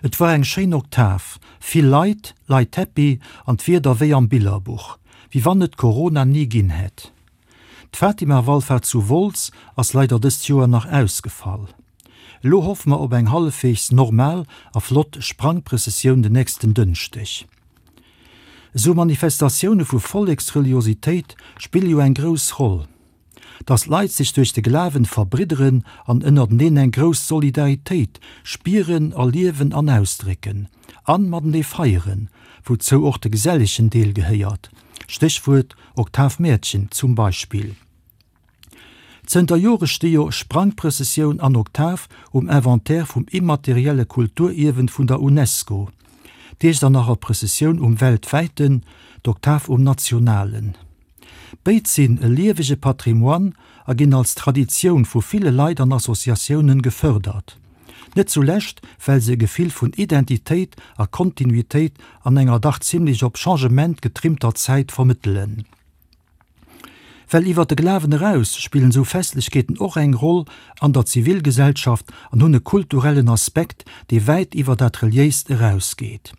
Et war eng schéin Oktav, vill Leit, Leit happy an d'Wieder wéi am Billerbuch, wéi wann et Corona ni ginn hätt. D'Fatima-Wallfahrt zu Wolz ass leider dëst Joer nach ausgefall. Elo hoffe mer op eng hallefweegs normal a flott Sprangprëssessioun den nächsten Dënschdeg. Esou Manifestatioune vu Volleksreliositéit spille jo eng grouss Roll. Datt d'Leit sech duerch de Glawen verbridderen an ënnerteneen eng grouss Solidaritéit spieren, erliewen an ausdrécken. An matenee feieren, wouzou och de gesellegen Deel gehéiert, Stéchwuert Oktavmäertchen zum Beispill. Zënter Jore sti jo Sprangprëssessioun an Oktav um Inventaire vum immaterielle Kulturierwen vun der Unesco, d'Iechternacher Prëssessioun um weltwäiten, d'Oktav um nationalen. Béid sinn e liewege Patrimoine a ginn als Traditioun vu ville Leit an Associatiounen gefërdert. Net zulescht, well se e Gefill vun Identitéit a Kontinuitéit an enger dach zimlech op Changement getrimmter Zäit vermëttelen. Well iwwer de Glawen eraus spillen esou Festlechkeeten och eng Roll an der Zivilgesellschaft an hunn e kulturellen Aspekt, dee wäit iwwer dat Reliéist erausgeet.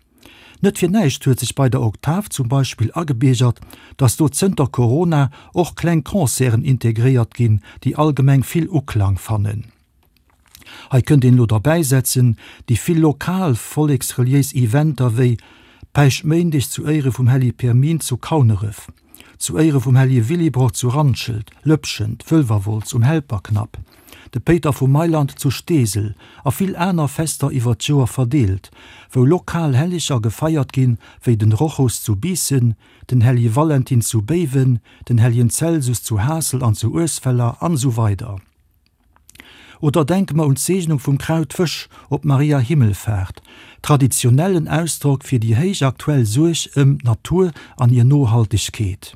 Net fir näischt huet sech bei der Oktav zum Beispill agebiergert, dass do zënter Corona och kleng Concerten integréiert ginn, déi allgemeng vill Uklang fannen. Hei kënnt een elo derbäisetzen, déi vill lokal volleksreliéis Eventer wéi Päischtméindeg zu Éiere vum Hellige Pirmin zu Kauneref, zu Éiere vum Hellige Willibrord zu Randschelt, Lëpschent, Wëlwerwolz um Helperknapp, de Péiter vu Mailand zu Steesel a vill aner Fester iwwer d'Joer verdeelt, wou lokal Helleger gefeiert ginn, wéi den Rochus zu Biissen, den Hellige Valentin zu Béiwen, den Helligen Celsus zu Haassel an zu Uesweller an esou weider. Oder denke mer un d'Seegnung vum Krautwësch op Maria Himmelfaart, traditionellen Ausdrock fir déi héich aktuell Suerg ëm d'Natur an hir Nohaltegkeet.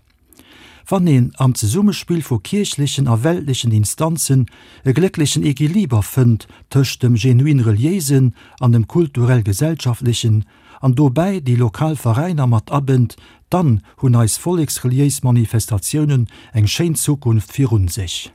Wann een am Zesummespill vu kierchlechen a weltlechen Instanzen e glécklechen Equiliber fënnt tëscht dem genuin Reliéisen an dem kulturell-gesellschaftlechen an dobäi déi lokal Veräiner mat abënnt, dann hunn eis volleksreliéis Manifestatiounen eng schéin Zukunft virun sech.